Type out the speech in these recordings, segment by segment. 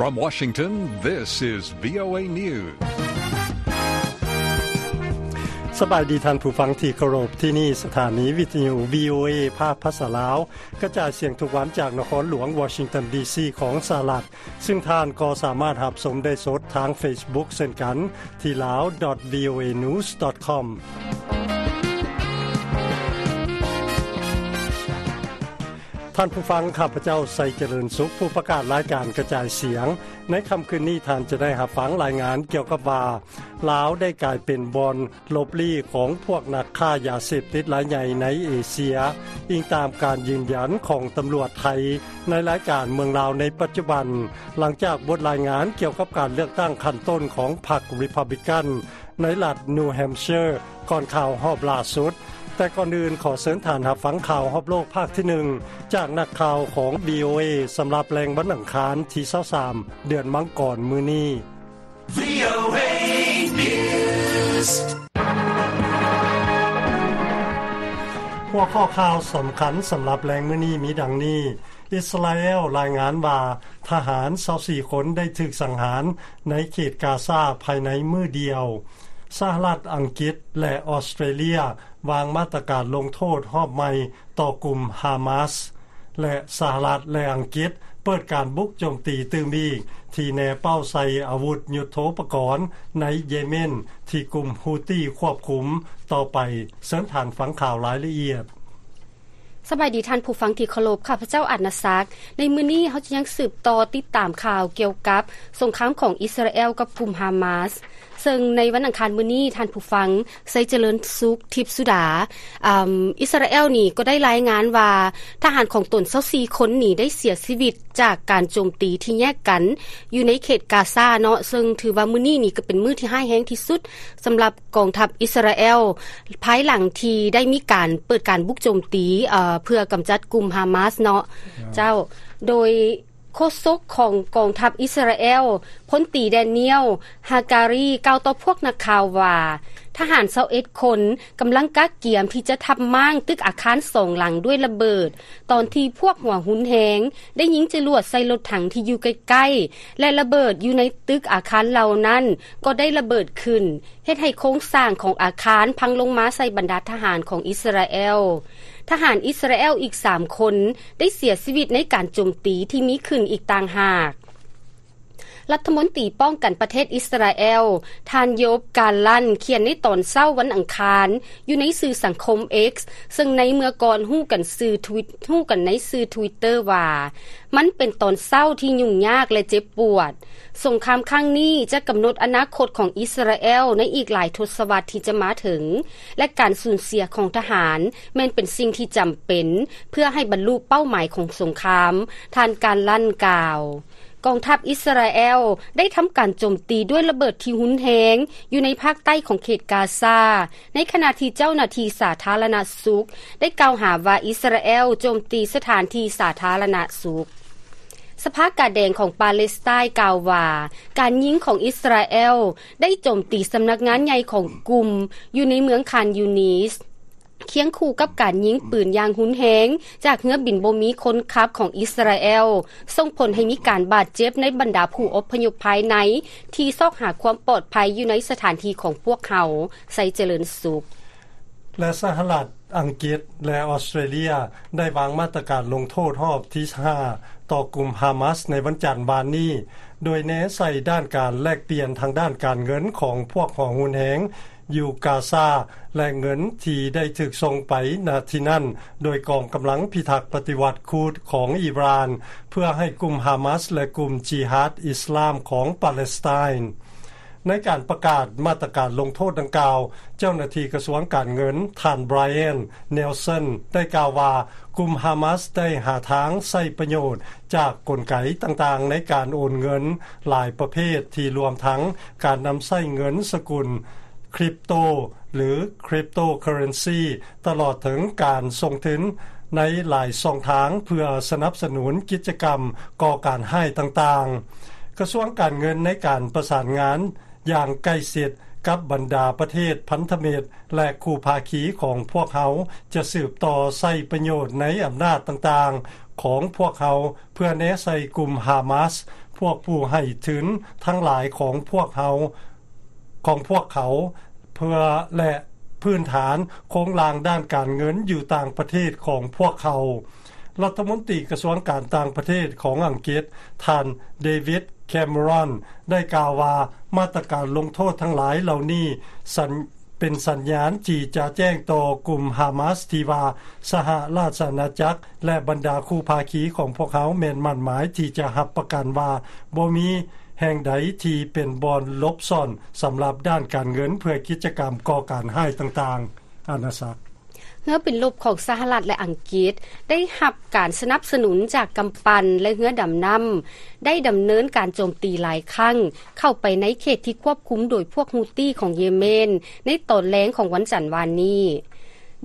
From Washington, this is VOA News. ສະບາຍດີທ່ານຜູ້ຟັງທີ່ເຄົາລົບ, ທີ່ນີ້ສະຖານີວິທະຍຸ VOA ພາກພາສາລາວ ກະຈາຍສຽງທຸກວັນຈາກນະຄອນຫຼວງວໍຊິງຕັນ ດີຊີ ຂອງສະຫະລັດ, ຊຶ່ງທ່ານກໍສາມາດຮັບຊົມໄດ້ສົດທາງ Facebook ເຊັ່ນກັນ ທີ່ lawdotvoanews.com. ທ່ານຜູ້ຟັງ, ຂ້າພະເຈົ້າ ໄຊຈະເລີນສຸກ, ຜູ້ປະກາດລາຍການກະຈາຍສຽງ. ໃນຄ່ຳຄືນນີ້, ທ່ານຈະໄດ້ຮັບຟັງລາຍງານກ່ຽວກັບວ່າ ລາວໄດ້ກາຍເປັນບ່ອນຫຼົບລີ້ຂອງພວກນັກຄ້າຢາເສບຕິດລາຍໃຫຍ່ໃນເອເຊຍ, ອີງຕາມການຢືນຢັນຂອງຕຳຫຼວດໄທ ໃນລາຍການເມືອງລາວໃນປັດຈຸບັນ, ຫຼັງຈາກບົດລາຍງານກ່ຽວກັບການເລືອກຕັ້ງຂັ້ນຕົ້ນຂອງພັກ Republican ໃນລັດ New Hampshire ກ່ອນຂ່າວຮອບລ່າສຸດ. ແຕ່ກ່ອນອື່ນ, ຂໍເຊີນທ່ານຮັບຟັງຂ່າວຮອບໂລກພາກທີໜຶ່ງ ຈາກນັກຂ່າວຂອງ VOA ສຳລັບແລງວັນອັງຄານທີຊາວສາມ ເດືອນມັງກອນ ມື້ນີ້. VOA News. ຫົວຂໍ້ຂ່າວສຳຄັນສຳລັບແລງມື້ນີ້ມີດັ່ງນີ້: ອິດສະຣາແອລລາຍງານວ່າ ທະຫານຊາວສີ່ຄົນໄດ້ຖືກສັງຫານໃນເຂດກາຊາພາຍໃນມື້ດຽວ. ສະຫະລັດ, ອັງກິດ ແລະ ອອສເຕຣເລຍ ວາງມາດຕະການລົງໂທດຮອບໃໝ່ຕໍ່ກຸ່ມຮາມາສ ແລະ ສະຫະລັດ ແລະ ອັງກິດ ເປີດການບຸກໂຈມຕີຕື່ມອີກ ທີ່ແນເປົ້າໃສ່ອາວຸດຍຸດໂທປະກອນໃນເຢເມນ ທີ່ກຸ່ມຮູ້ຕີຄວບຄຸມຕໍ່ໄປ. ເຊີນທ່ານຟັງຂ່າວລາຍລະອຽດ. ສະບາຍດີທ່ານຜູ້ຟັງທີ່ເຄົາລົບ, ຂ້າພະເຈົ້າ ອາດນາສັກ. ໃນມື້ນີ້ເຮົາຈະຍັງສືບຕໍ່ຕິດຕາມຂ່າວກ່ຽວກັບສົງຄາມຂອງອິດສະຣາແອລກັບກຸ່ມຮາມາສ. ເຊິ່ງໃນວັນອັງຄານມື້ນີ້, ທ່ານຜູ້ຟັງ ໄຊຈະເລີນສຸກ ທິບສຸດາ, ອາ, ອິດສະຣາແອລນີ້ກໍໄດ້ລາຍງານວ່າ ທະຫານຂອງຕົນຊາວສີ່ຄົນນີ້ໄດ້ເສຍຊີວິດຈາກການໂຈມຕີທີ່ແຍກກັນຢູ່ໃນເຂດກາຊາເນາະ, ເຊິ່ງຖືວ່າມື້ນີ້ນີ້ກໍເປັນມື້ທີ່ຮ້າຍແຮງທີ່ສຸດສຳລັບກອງທັບອິດສະຣາແອລ, ພາຍຫຼັງທີ່ໄດ້ມີການເປີດການບຸກໂຈມຕີ, ເອີ, ເພື່ອກຳຈັດກຸ່ມຮາມາສເນາະ. ເຈົ້າ, ໂດຍ ໂຄສົກຂອງກອງທັບອິດສະຣາແອລ ພົນຕີ ແດນຽວ ຮາກາຣີ ກ່າວຕໍ່ພວກນັກຂ່າວວ່າ ທະຫານຊາວເອັດຄົນກຳລັງກະກຽມທີ່ຈະທັບມ້າງຕຶກອາຄານສອງຫຼັງດ້ວຍລະເບີດ, ຕອນທີ່ພວກຫົວຮຸນແຮງໄດ້ຍິງຈະຫຼວດໃສ່ລົດຖັງທີ່ຢູ່ໃກ້ໆ ແລະ ລະເບີດຢູ່ໃນຕຶກອາຄານເຫຼົ່ານັ້ນກໍໄດ້ລະເບີດຂຶ້ນ, ເຮັດໃຫ້ໂຄງສ້າງຂອງອາຄານພັງລົງມາໃສ່ບັນດາທະຫານຂອງອິດສະຣາແອລ. ທະຫານອິດສະຣາແອລອີກສາມຄົນໄດ້ເສຍຊີວິດໃນການໂຈມຕີທີ່ມີຂຶ້ນອີກຕ່າງຫາກ. ລັດຖະມົນຕີປ້ອງກັນປະເທດອິດສະຣາແອລ ທ່ານ ໂຢບ ກາລັນ ຂຽນໃນຕອນເຊົ້າວັນອັງຄານຢູ່ໃນສື່ສັງຄົມ X, ເຊິ່ງໃນເມື່ອກ່ອນຮູ້ກັນຊື່ Twi-, ຮູ້ກັນໃນຊື່ Twitter ວ່າ ມັນເປັນຕອນເຊົ້າທີ່ຫຍຸ້ງຍາກ ແລະ ເຈັບປວດ. ສົງຄາມຄັ້ງນີ້ຈະກຳນົດອະນາຄົດຂອງອິດສະຣາແອລໃນອີກຫຼາຍທົດສະວັດທີ່ຈະມາເຖິງ, ແລະ ການສູນເສຍຂອງທະຫານແມ່ນເປັນສິ່ງທີ່ຈຳເປັນເພື່ອໃຫ້ບັນລຸເປົ້າໝາຍຂອງສົງຄາມ, ທ່ານ ກາລັນ ກ່າວ. ກອງທັບອິດສະຣາແອລໄດ້ທຳການໂຈມຕີດ້ວຍລະເບີດທີ່ຮຸນແຮງຢູ່ໃນພາກໃຕ້ຂອງເຂດກາຊາ, ໃນຂະນະທີ່ເຈົ້າໜ້າທີ່ສາທາລະນະສຸກໄດ້ກ່າວຫາວ່າອິດສະຣາແອລໂຈມຕີສະຖານທີ່ສາທາລະນະສຸກ. ສະພາກາແດງຂອງປາເລສໄຕນ໌ກ່າວວ່າ ການຍິງຂອງອິດສະຣາແອລໄດ້ໂຈມຕີສຳນັກງານໃຫຍ່ຂອງກຸ່ມຢູ່ໃນເມືອງຄານຢູນິດ, ຄຽງຄູ່ກັບການຍິງປືນຢ່າງຮຸນແຮງຈາກເຮືອບິນບໍ່ມີຄົນຂັບຂອງອິດສະຣາແອລ, ສົ່ງຜົນໃຫ້ມີການບາດເຈັບໃນບັນດາຜູ້ອົບພະຍົບພາຍໃນທີ່ຊອກຫາຄວາມປອດໄພຢູ່ໃນສະຖານທີ່ຂອງພວກເຮົາ, ໄຊຈະເລີນສຸກ. ແລະ ສະຫະລັດ, ອັງກິດ ແລະ ອອສເຕຣເລຍ ໄດ້ວາງມາດຕະການລົງໂທດຮອບທີຫ້າຕໍ່ກຸ່ມຮາມາສໃນວັນຈັນວານນີ້, ໂດຍແນໃສ່ດ້ານການແລກປ່ຽນທາງດ້ານການເງິນຂອງພວກຫົວຮຸນແຮງຢູ່ກາຊາ ແລະ ເງິນທີ່ໄດ້ຖືກສົ່ງໄປນະທີ່ນັ້ນໂດຍກອງກຳລັງພິທັກປະຕິວັດຄູດຂອງອີຣານ ເພື່ອໃຫ້ກຸ່ມຮາມາສ ແລະ ກຸ່ມຈິຮາດອິສລາມຂອງປາເລສໄຕນ໌. ໃນການປະກາດມາດຕະການລົງໂທດດັ່ງກ່າວ, ເຈົ້າໜ້າທີ່ກະຊວງການເງິນ ທ່ານ Brian Nelson ໄດ້ກ່າວວ່າ ກຸ່ມຮາມາສໄດ້ຫາທາງໃຊ້ປະໂຫຍດຈາກກົນໄກຕ່າງໆໃນການໂອນເງິນຫຼາຍປະເພດ ທີ່ລວມທັງການນຳໃຊ້ເງິນສະກຸນຄຣິບໂຕ ຫຼື cryptocurrency ຕະຫຼອດເຖິງການສົ່ງທຶນໃນຫຼາຍຊ່ອງທາງເພື່ອສະໜັບສະໜູນກິດຈະກຳກໍ່ການຮ້າຍຕ່າງໆ. ກະຊວງການເງິນໃນການປະສານງານຢ່າງໃກ້ຊິດກັບບັນດາປະເທດພັນທະມິດ ແລະ ຄູ່ພາຄີຂອງພວກເຮົາ ຈະສືບຕໍ່ໃຊ້ປະໂຫຍດໃນອຳນາດຕ່າງໆ ຂອງພວກເຮົາ ເພື່ອແນໃສ່ກຸ່ມຮາມາສ, ພວກຜູ້ໃຫ້ທຶນທັງຫຼາຍຂອງພວກເຮົາ, ຂອງພວກເຂົາ, ເພື່ອ ແລະ ພື້ນຖານໂຄງລ່າງດ້ານການເງິນຢູ່ຕ່າງປະເທດຂອງພວກເຂົາ. ລັດຖະມົນຕີກະຊວງການຕ່າງປະເທດຂອງອັງກິດ, ທ່ານ ເດວິດ ແຄມເມຣອນ ໄດ້ກ່າວວ່າ ມາດຕະການລົງໂທດທັງຫຼາຍເຫຼົ່ານີ້ ສັນ ເປັນສັນຍານທີ່ຈະແຈ້ງຕໍ່ກຸ່ມຮາມາສທີ່ວ່າ ສະຫະລາຊະອານາຈັກ ແລະ ບັນດາຄູ່ພາຄີຂອງພວກເຮົາແມ່ນໝັ້ນໝາຍທີ່ຈະຮັບປະກັນວ່າ ບໍ່ມີແຫ່ງໃດທີ່ເປັນບ່ອນຫຼົບຊ່ອນສຳລັບດ້ານການເງິນເພື່ອກິດຈະກຳກໍ່ການຮ້າຍຕ່າງໆ. ອານາສັກ. ເຮືອບິນລົບຂອງສະຫະລັດ ແລະ ອັງກິດ ໄດ້ຮັບການສະໜັບສະໜູນຈາກກຳປັ່ນ ແລະ ເຮືອດຳນ້ຳ ໄດ້ດຳເນີນການໂຈມຕີຫຼາຍຄັ້ງ ເຂົ້າໄປໃນເຂດທີ່ຄວບຄຸມໂດຍພວກຮູ້ຕີຂອງເຢເມນ ໃນຕອນແລງຂອງວັນຈັນວານນີ້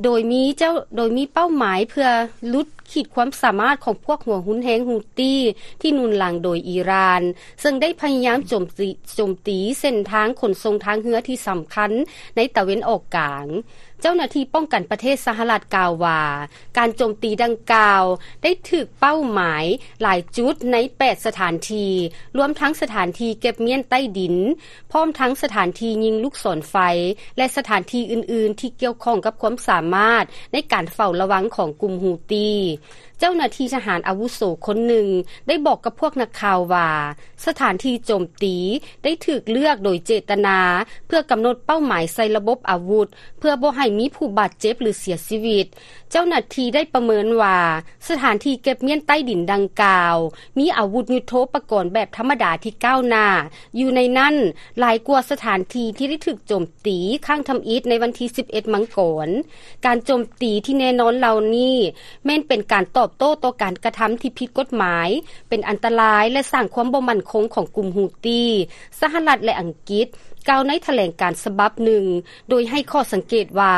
ໂດຍມີເຈົ້າ ໂດຍມີເປົ້າໝາຍເພື່ອຫຼຸດ ຂີດຄວາມສາມາດຂອງພວກຫົວຮຸນແຮງຮູ້ຕີທີ່ໜູນຫຼັງໂດຍອີຣານ ເຊິ່ງໄດ້ພະຍາຍາມໂຈມຕີ ໂຈມຕີເສັ້ນທາງຂົນສົ່ງທາງເຮືອທີ່ສຳຄັນໃນຕາເວັນອອກກາງ. ເຈົ້າໜ້າທີ່ປ້ອງກັນປະເທດສະຫະລັດກ່າວວ່າ ການໂຈມຕີດັ່ງກ່າວໄດ້ຖືກເປົ້າໝາຍຫຼາຍຈຸດໃນແປດສະຖານທີ່, ລວມທັງສະຖານທີ່ເກັບມ້ຽນໃຕ້ດິນ, ພ້ອມທັງສະຖານທີ່ຍິງລູກສອນໄຟ ແລະ ສະຖານທີ່ອື່ນໆທີ່ກ່ຽວຂ້ອງກັບຄວາມສາມາດໃນການເຝົ້າລະວັງຂອງກຸ່ມຮູ້ຕີ. ເຈົ້າໜ້າທີ່ທະຫານອາວຸໂສຄົນໜຶ່ງໄດ້ບອກກັບພວກນັກຂ່າວວ່າ ສະຖານທີ່ໂຈມຕີໄດ້ຖືກເລືອກໂດຍເຈດຕະນາ ເພື່ອກຳນົດເປົ້າໝາຍໃສ່ລະບົບອາວຸດ ເພື່ອບໍ່ໃຫ້ມີຜູ້ບາດເຈັບ ຫຼື ເສຍຊີວິດ. ເຈົ້າໜ້າທີ່ໄດ້ປະເມີນວ່າ ສະຖານທີ່ເກັບມ້ຽນໃຕ້ດິນດັ່ງກ່າວ ມີອາວຸດຍຸດໂທປະກອນແບບທຳມະດາທີ່ກ້າວໜ້າຢູ່ໃນນັ້ນ ຫຼາຍກວ່າສະຖານທີ່ທີ່ໄດ້ຖືກໂຈມ ຕີຄັ້ງທຳອິດໃນວັນທີສິບເອັດມັງກອນ. ການໂຈມຕີທີ່ແນ່ນອນເຫຼົ່ານີ້ ແມ່ນເປັນການຕອບໂຕ້ຕໍ່ການກະທຳທີ່ຜິດກົດໝາຍ, ເປັນອັນຕະລາຍ ແລະ ສ້າງຄວາມບໍ່ໝັ້ນຄົງຂອງກຸ່ມຮູ້ຕີ. ສະຫະລັດ ແລະ ອັງກິດ ກ່າວໃນຖະແຫຼງການສະບັບໜຶ່ງ ໂດຍໃຫ້ຂໍ້ສັງເກດວ່າ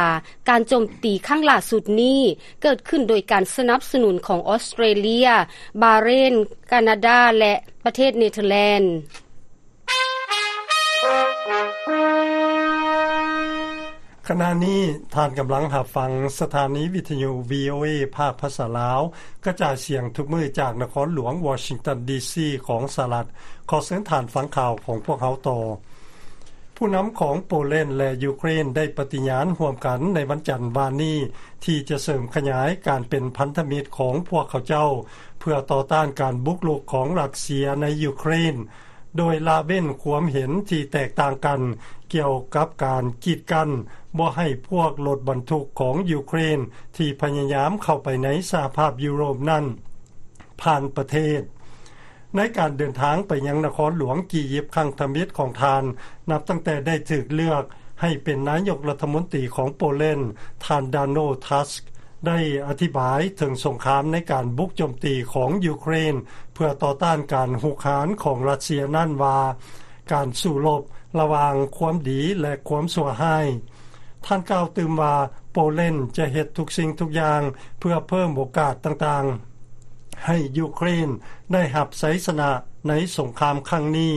ການໂຈມຕີຄັ້ງລ່າສຸດນີ້ ເກີດຂຶ້ນໂດຍການສະໜັບສະໜູນຂອງອອສເຕຣເລຍ, ບາເຣນ, ການາດາ ແລະ ປະເທດເນເທີແລນ. ຂະນະນີ້ທ່ານກຳລັງຮັບຟັງສະຖານີວິທະຍຸ ວີໂອເອ ພາກພາສາລາວ ກະຈາຍສຽງທຸກມື້ຈາກນະຄອນຫຼວງວໍຊິງຕັນ ດີຊີ ຂອງສະຫະລັດ. ຂໍເຊີນທ່ານຟັງຂ່າວຂອງພວກເຮົາຕໍ່. ຜູ້ນຳຂອງໂປແລນ ແລະ ຢູເຄຣນ ໄດ້ປະຕິຍານຮ່ວມກັນໃນວັນຈັນວານນີ້ ທີ່ຈະເສີມຂະຫຍາຍການເປັນພັນທະມິດຂອງພວກເຂົາເຈົ້າ ເພື່ອຕໍ່ຕ້ານການບຸກລຸກຂອງຣັດເຊຍໃນຢູເຄຣນ. ໂດຍລະເວັ້ນຄວາມເຫັນທີ່ແຕກຕ່າງກັນກ່ຽວກັບການກີດກັ້ນບໍ່ໃຫ້ພວກລົດບັນທຸກຂອງຢູເຄຣນທີ່ພະຍາຍາມເຂົ້າໄປໃນສະຫະພາບຢູໂຣບນັ້ນຜ່ານປະເທດ. ໃນການເດີນທາງໄປຍັງນະຄອນຫຼວງກີຢິບຄັ້ງທຳອິດຂອງທ່ານ ນັບຕັ້ງແຕ່ໄດ້ຖືກເລືອກໃຫ້ເປັນນາຍົກລັດຖະມົນຕີຂອງໂປແລນ, ທ່ານ ດາໂນ ທັສ ໄດ້ອະທິບາຍເຖິງສົງຄາມໃນການບຸກໂຈມຕີຂອງຢູເຄຣນ ເພື່ອຕໍ່ຕ້ານການຮຸກຮານຂອງຣັດເຊຍນັ້ນວ່າ ການສູ້ລົບລະຫວ່າງຄວາມດີ ແລະ ຄວາມຊົ່ວຮ້າຍ. ທ່ານກ່າວຕື່ມວ່າ ໂປແລນຈະເຮັດທຸກສິ່ງທຸກຢ່າງເພື່ອເພີ່ມໂອກາດຕ່າງໆ ໃຫ້ຢູເຄຣນໄດ້ຮັບໄຊຊະນະໃນສົງຄາມຄັ້ງນີ້.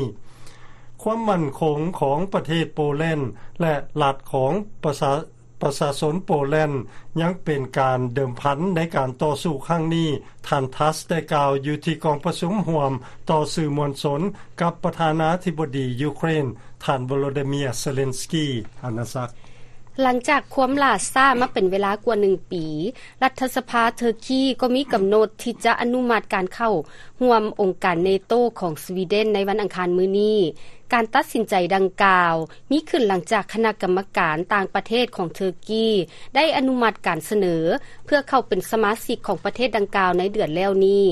ຄວາມໝັ້ນຄົງຂອງປະເທດໂປແລນ ແລະ ລັດຂອງປະຊາ ປະຊາຊົນໂປແລນ ຍັງເປັນການເດີມພັນໃນການຕໍ່ສູ້ຄັ້ງນີ້, ທ່ານ ທັສ ໄດ້ກ່າວຢູ່ທີ່ກອງປະຊຸມຮ່ວມຕໍ່ສື່ມວນຊົນກັບປະທານາທິບໍດີຢູເຄຣນ, ທ່ານ ໂວໂລດີເມຍ ເຊເລັນສກີ. ອານາສັກ. ຫຼັງຈາກຄວາມຫຼ້າຊ້າມາເປັນເວລາກວ່າໜຶ່ງປີ, ລັດຖະສະພາເທີກີກໍມີກຳນົດທີ່ຈະອະນຸມັດການເຂົ້າຮ່ວມອົງການເນໂຕຂອງສະວີເດັນໃນວັນອັງຄານມື້ນີ້. ການຕັດສິນໃຈດັ່ງກ່າວ ມີຂຶ້ນຫຼັງຈາກຄະນະກຳມະການຕ່າງປະເທດຂອງເທີກີ ໄດ້ອະນຸມັດການສະເໜີເພື່ອເຂົ້າເປັນສະມາຊິກຂອງປະເທດດັ່ງກ່າວໃນເດືອນແລ້ວນີ້.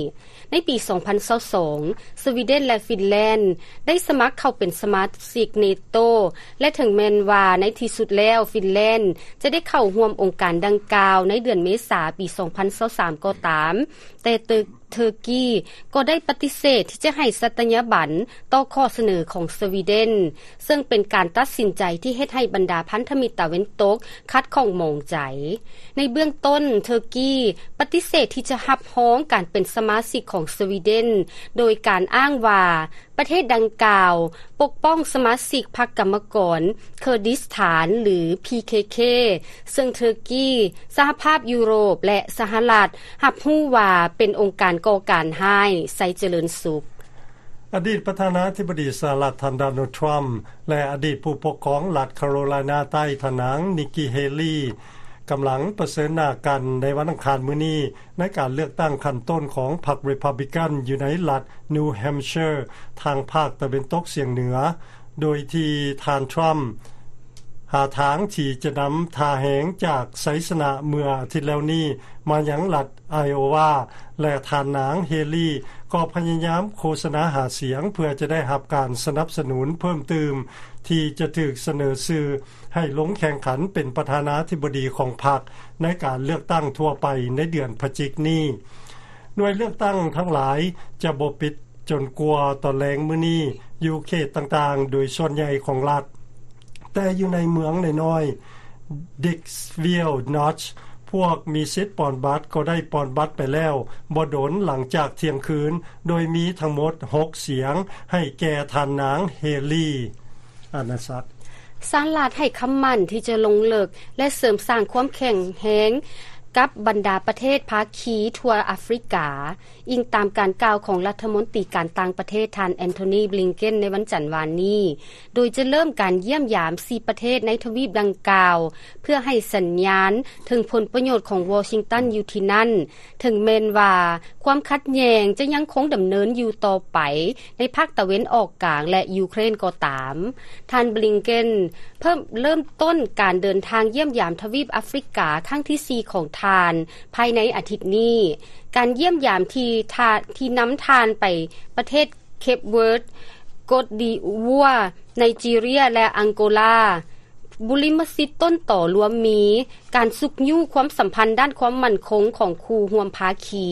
ໃນປີສອງພັນຊາວສອງ ສະວີເດັນ ແລະ ຟິນແລນ ໄດ້ສະໝັກເຂົ້າເປັນສະມາຊິກເນໂຕ ແລະ ເຖິງແມ່ນວ່າໃນທີ່ສຸດແລ້ວ ຟິນແລນ ຈະໄດ້ເຂົ້າຮ່ວມອົງການດັ່ງກ່າວໃນເດືອນເມສາປີສອງພັນຊາວສາມກໍຕາມ, ແຕ່ເຕີ ເທີກີກໍໄດ້ປະຕິເສດທີ່ຈະໃຫ້ສັດຕະຍາບັນຕໍ່ຂໍ້ສະເໜີຂອງສະວີເດັນ, ເຊິ່ງເປັນການຕັດສິນໃຈທີ່ເຮັດໃຫ້ບັນດາພັນທະມິດຕາເວັນຕົກຂັດຂ້ອງໝອງໃຈ. ໃນເບື້ອງຕົ້ນ, ເທີກີປະຕິເສດທີ່ຈະຮັບຮອງການເປັນສະມາຊິກຂອງສະວີເດັນ, ໂດຍການອ້າງວ່າ ປະເທດດັ່ງກ່າວປົກປ້ອງສະມາຊິກພັກກຳມະກອນເຄີດິສຖານ ຫຼື ພີເຄເຄ ເຊິ່ງເທີກີ, ສະຫະພາບຢູໂຣບ ແລະ ສະຫະລັດ ຮັບຮູ້ວ່າເປັນອົງການກໍ່ການຮ້າຍ. ໄຊຈະເລີນສຸກ. ອະດີດປະທານາທິບໍດີສະຫະລັດ ທ່ານ ໂດນັລ ທຣຳ ແລະ ອະດີດຜູ້ປົກຄອງລັດຄາໂຣໄລນາໃຕ້ ທ່ານນາງ ນິກກີ ເຮລີ ກຳລັງປະເຊີນໜ້າກັນໃນວັນອັງຄານມື້ນີ້ ໃນການເລືອກຕັ້ງຂັ້ນຕົ້ນຂອງພັກຣີພັບບລິກັນ ຢູ່ໃນລັດນິວແຮມເຊີ ທາງພາກຕາເວັນຕົກສຽງເໜືອ, ໂດຍທີ່ທ່ານ ທຣຳ ຫາທາງທີ່ຈະນຳທ່າແຮງຈາກໄຊຊະນະເມື່ອອາທິດແລ້ວນີ້ມາຍັງລັດໄອໂອວາ ແລະ ທ່ານນາງ ເຮລີ ກໍພະຍາຍາມໂຄສະນາຫາສຽງ ເພື່ອຈະໄດ້ຮັບການສະໜັບສະໜູນເພີ່ມຕື່ມ ທີ່ຈະຖືກສະເໜີຊື່ໃຫ້ລົງແຂ່ງຂັນເປັນປະທານາທິບໍດີຂອງພັກ ໃນການເລືອກຕັ້ງທົ່ວໄປໃນເດືອນພະຈິກນີ້. ໜ່ວຍເລືອກຕັ້ງທັງຫຼາຍຈະບໍ່ປິດຈົນກວ່າຕອນແລງມື້ນີ້ ຢູ່ເຂດຕ່າງໆໂດຍສ່ວນໃຫຍ່ຂອງລັດ, ແຕ່ຢູ່ໃນເມືອງນ້ອຍໆ ດິກສະວິລນອດ ພວກມີສິດປ່ອນບັດກໍໄດ້ປ່ອນບັດໄປແລ້ວບໍ່ດົນຫຼັງຈາກທ່ຽງຄືນ, ໂດຍມີທັງໝົດຫົກສຽງໃຫ້ແກ່ທ່ານນາງ ເຮລີ. ອານາສັກ. ສະຫະລັດໃຫ້ຄຳໝັ້ນທີ່ຈະລົງເລິກ ແລະ ເສີມສ້າງຄວາມແຂງແຮງກັບບັນດາປະເທດພາຄີທົ່ວອາຟຣິກາ, ອີງຕາມການກ່າວຂອງລັດຖະມົນຕີການຕ່າງປະເທດ ທ່ານ ແອນໂທນີ ບລິງເກັນ ໃນວັນຈັນວານນີ້, ໂດຍຈະເລີ່ມການຢ້ຽມຢາມສີ່ປະເທດໃນທະວີບດັ່ງກ່າວ ເພື່ອໃຫ້ສັນຍານເຖິງຜົນປະໂຫຍດຂອງວໍຊິງຕັນຢູ່ທີ່ນັ້ນ, ເຖິງແມ່ນວ່າຄວາມຂັດແຍ່ງຈະຍັງຄົງດຳເນີນຢູ່ຕໍ່ໄປໃນພາກຕາເວັນອອກກາງ ແລະ ຢູເຄຣນກໍຕາມ. ທ່ານ ບລິງເກັນ ເພີ່ມເລີ່ມຕົ້ນການເດີນທາງຢ້ຽມຢາມທະວີບອາຟຣິກາຄັ້ງທີສີ່ຂອງທ່ານພາຍໃນອາທິດນີ້. ການຢ້ຽມຢາມທີ່ທ່ານ ທີ່ນຳທ່ານໄປປະເທດເຄບເວີດ, ໂກດດີໂອວາ, ໄນຈີເຣຍ ແລະ ອັງໂກລາ. ບຸລິມະສິດຕົ້ນຕໍລວມມີການຊຸກຍູ້ຄວາມສຳພັນດ້ານຄວາມໝັ້ນຄົງຂອງຄູ່ຮ່ວມພາຄີ,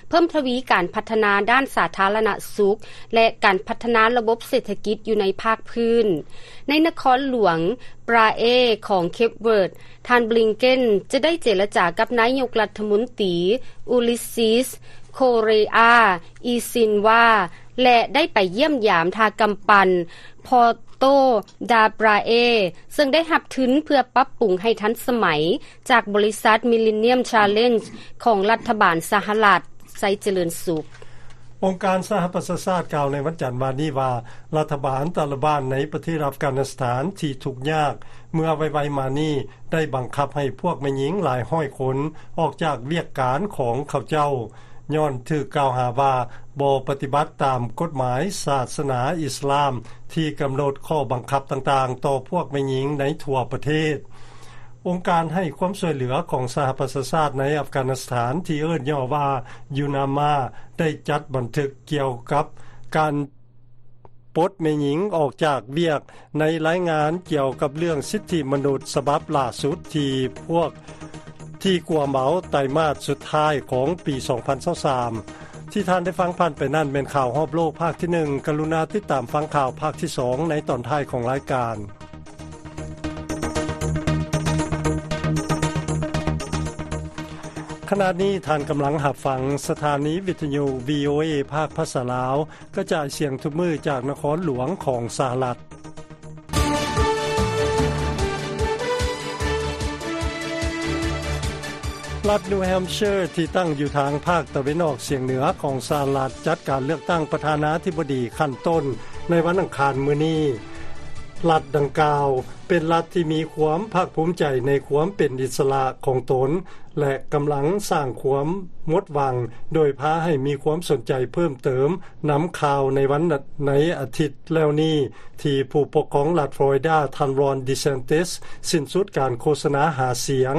ເພີ່ມທະວີການພັດທະນາດ້ານສາທາລະນະສຸກ ແລະ ການພັດທະນາລະບົບເສດຖະກິດຢູ່ໃນພາກພື້ນ. ໃນນະຄອນຫຼວງປຣາເອຂອງເຄບເວີດ, ທ່ານ ບລິງເກັນ ຈະໄດ້ເຈລະຈາກັບນາຍົກລັດຖະມົນຕີ ອູລິສຊິສ ໂຄເຣອາ ອີຊິນວາ ແລະ ໄດ້ໄປຢ້ຽມຢາມທ່າກຳປັ່ນ Porto da Praia ເຊິ່ງໄດ້ຮັບທຶນເພື່ອປັບປຸງໃຫ້ທັນສະໄໝ ຈາກບໍລິສັດ Millennium Challenge ຂອງລັດຖະບານສະຫະລັດ. ໄຊຈະເລີນສຸກ. ອົງການສະຫະປະຊາຊາດກ່າວໃນວັນຈັນວານນີ້ວ່າ ລັດຖະບານຕາລະບານໃນປະເທດອັຟການິສຖານທີ່ທຸກຍາກເມື່ອໄວໆມານີ້ ໄດ້ບັງຄັບໃຫ້ພວກແມ່ຍິງຫຼາຍຮ້ອຍຄົນອອກຈາກວຽກການຂອງເຂົາເຈົ້າ ຍ້ອນຖືກກ່າວຫາວ່າບໍ່ປະຕິບັດຕາມກົດໝາຍສາສະໜາອິສລາມ ທີ່ກຳນົດຂໍ້ບັງຄັບຕ່າງໆຕໍ່ພວກແມ່ຍິງໃນທົ່ວປະເທດ. ອົງການໃຫ້ຄວາມຊ່ວຍເຫຼືອຂອງສະຫະປະຊາຊາດໃນອັຟການິສຖານ ທີ່ເອີ້ນຫຍໍ້ວ່າ UNAMA ໄດ້ຈັດບັນທຶກກ່ຽວກັບການປົດແມ່ຍິງອອກຈາກວຽກ ໃນລາຍງານກ່ຽວກັບເລື່ອງສິດທິມະນຸດສະບັບລ່າສຸດທີ່ພວກ ທີ່ກວມເອົາໄຕມາດສຸດທ້າຍຂອງປີສອງພັນຊາວສາມ. ທີ່ທ່ານໄດ້ຟັງຜ່ານໄປນັ້ນແມ່ນຂ່າວຮອບໂລກພາກທີໜຶ່ງ. ກະລຸນາຕິດຕາມຟັງຂ່າວພາກທີສອງໃນຕອນທ້າຍຂອງລາຍການ. ຂະນະນີ້ທ່ານກຳລັງຮັບຟັງສະຖານີວິທະຍຸ ວີໂອເອ ພາກພາສາລາວ ກະຈາຍສຽງທຸກມື້ຈາກນະຄອນຫຼວງຂອງສະຫະລັດ. ລັດນິວແຮມເຊີ ທີ່ຕັ້ງຢູ່ທາງພາກຕາເວັນອອກສຽງເໜືອຂອງສະຫະລັດ ຈັດການເລືອກຕັ້ງປະທານາທິບໍດີຂັ້ນຕົ້ນໃນວັນອັງຄານມື້ນີ້. ລັດດັ່ງກ່າວເປັນລັດທີ່ມີຄວາມພາກພູມໃຈໃນຄວາມເປັນອິດສະຫຼະຂອງຕົນ ແລະ ກຳລັງສ້າງຄວາມໝົດຫວັງ ໂດຍພາໃຫ້ມີຄວາມສົນໃຈເພີ່ມເຕີມນຳຂ່າວໃນວັນ ໃນອາທິດແລ້ວນີ້ ທີ່ຜູ້ປົກຄອງລັດຟລໍຣິດາ ທ່ານ ຣອນ ດີແຊນຕິສ ສິ້ນສຸດການໂຄສະນາຫາສຽງ,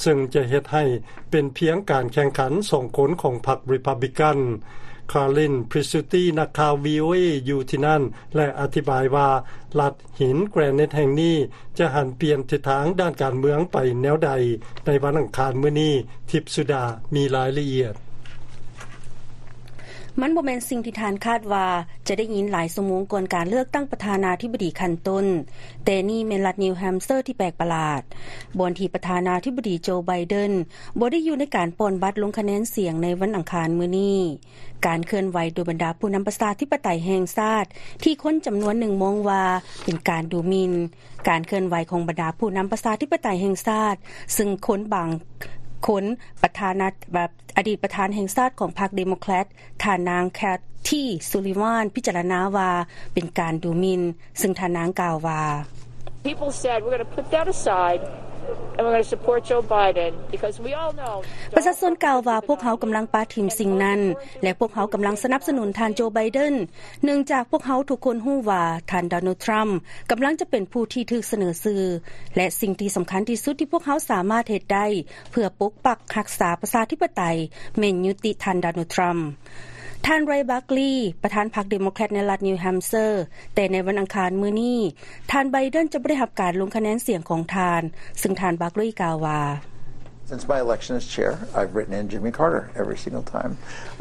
ເຊິ່ງຈະເຮັດໃຫ້ເປັນພຽງການແຂ່ງຂັນສອງຄົນຂອງພັກຣີພັບບລິກັນ. ຄາລິນ ພຣິສຊູຕີ ນັກຂ່າວ ວີໂອເອ ຢູ່ທີ່ນັ້ນ ແລະ ອະທິບາຍວ່າ ລັດ ຫີນແກຣນິດແຫ່ງນີ້ຈະຫັນປ່ຽນທິດທາງດ້ານການເມືອງໄປແນວໃດໃນວັນອັງຄານມື້ນີ້. ທິບສຸດາມີລາຍລະອຽດ. ມັນບໍ່ແມ່ນສິ່ງທີ່ທ່ານຄາດວ່າຈະໄດ້ຍິນຫຼາຍຊົ່ວໂມງກ່ອນການເລືອກຕັ້ງປະທານາທິບໍດີຂັ້ນຕົ້ນ, ແຕ່ນີ້ແມ່ນລັດນິວແຮມເຊີທີ່ແປກປະຫຼາດ, ບ່ອນທີ່ປະທານາທິບໍດີໂຈ ໄບເດັນບໍ່ໄດ້ຢູ່ໃນການປ່ອນບັດລົງຄະແນນສຽງໃນວັນອັງຄານມື້ນີ້. ການເຄື່ອນໄຫວໂດຍບັນດາຜູ້ນຳປະຊາທິປະໄຕແຫ່ງຊາດ ທີ່ຄົນຈຳນວນໜຶ່ງມອງວ່າເປັນການດູໝິ່ນ, ການເຄື່ອນໄຫວຂອງບັນດາຜູ້ນຳປະຊາທິປະໄຕແຫ່ງຊາດ, ຊຶ່ງຄົນບາງຄົນ ປະທານາ ອະດີດປະທານແຫ່ງຊາດຂອງພັກເດໂມແຄຣດ ທ່ານນາງ ແຄທ ຊູລີວານ ພິຈາລະນາວ່າເປັນການດູໝິ່ນ, ຊຶ່ງທ່ານນາງກ່າວວ່າ: People said, "We're gonna put that aside and we're gonna support Joe Biden because we all know." ປະຊາຊົນກ່າວວ່າ ພວກເຮົາກຳລັງປະຖິ້ມສິ່ງນັ້ນ ແລະ ພວກເຮົາກຳລັງສະໜັບສະໜູນທ່ານໂຈ ໄບເດັນ ເນື່ອງຈາກພວກເຮົາທຸກຄົນຮູ້ວ່າທ່ານ ໂດນັລ ທຣຳ ກຳລັງຈະເປັນຜູ້ທີ່ຖືກສະເໜີຊື່ ແລະ ສິ່ງທີ່ສຳຄັນທີ່ສຸດທີ່ພວກເຮົາສາມາດເຮັດໄດ້ ເພື່ອປົກປັກຮັກສາປະຊາທິປະໄຕ ແມ່ນຍຸຕິທ່ານ ໂດນັລ ທຣຳ. ທ່ານ ເຣ ບາກລີ ປະທານພັກເດໂມແຄຣດໃນລັດນິວແຮມເຊີ, ແຕ່ໃນວັນອັງຄານມື້ນີ້ ທ່ານ ໄບເດັນ ຈະບໍ່ໄດ້ຮັບການລົງຄະແນນສຽງຂອງທ່ານ, ຊຶ່ງທ່ານ ບາກລີ ກ່າວວ່າ: "Since my election as chair, I've written in Jimmy Carter every single time,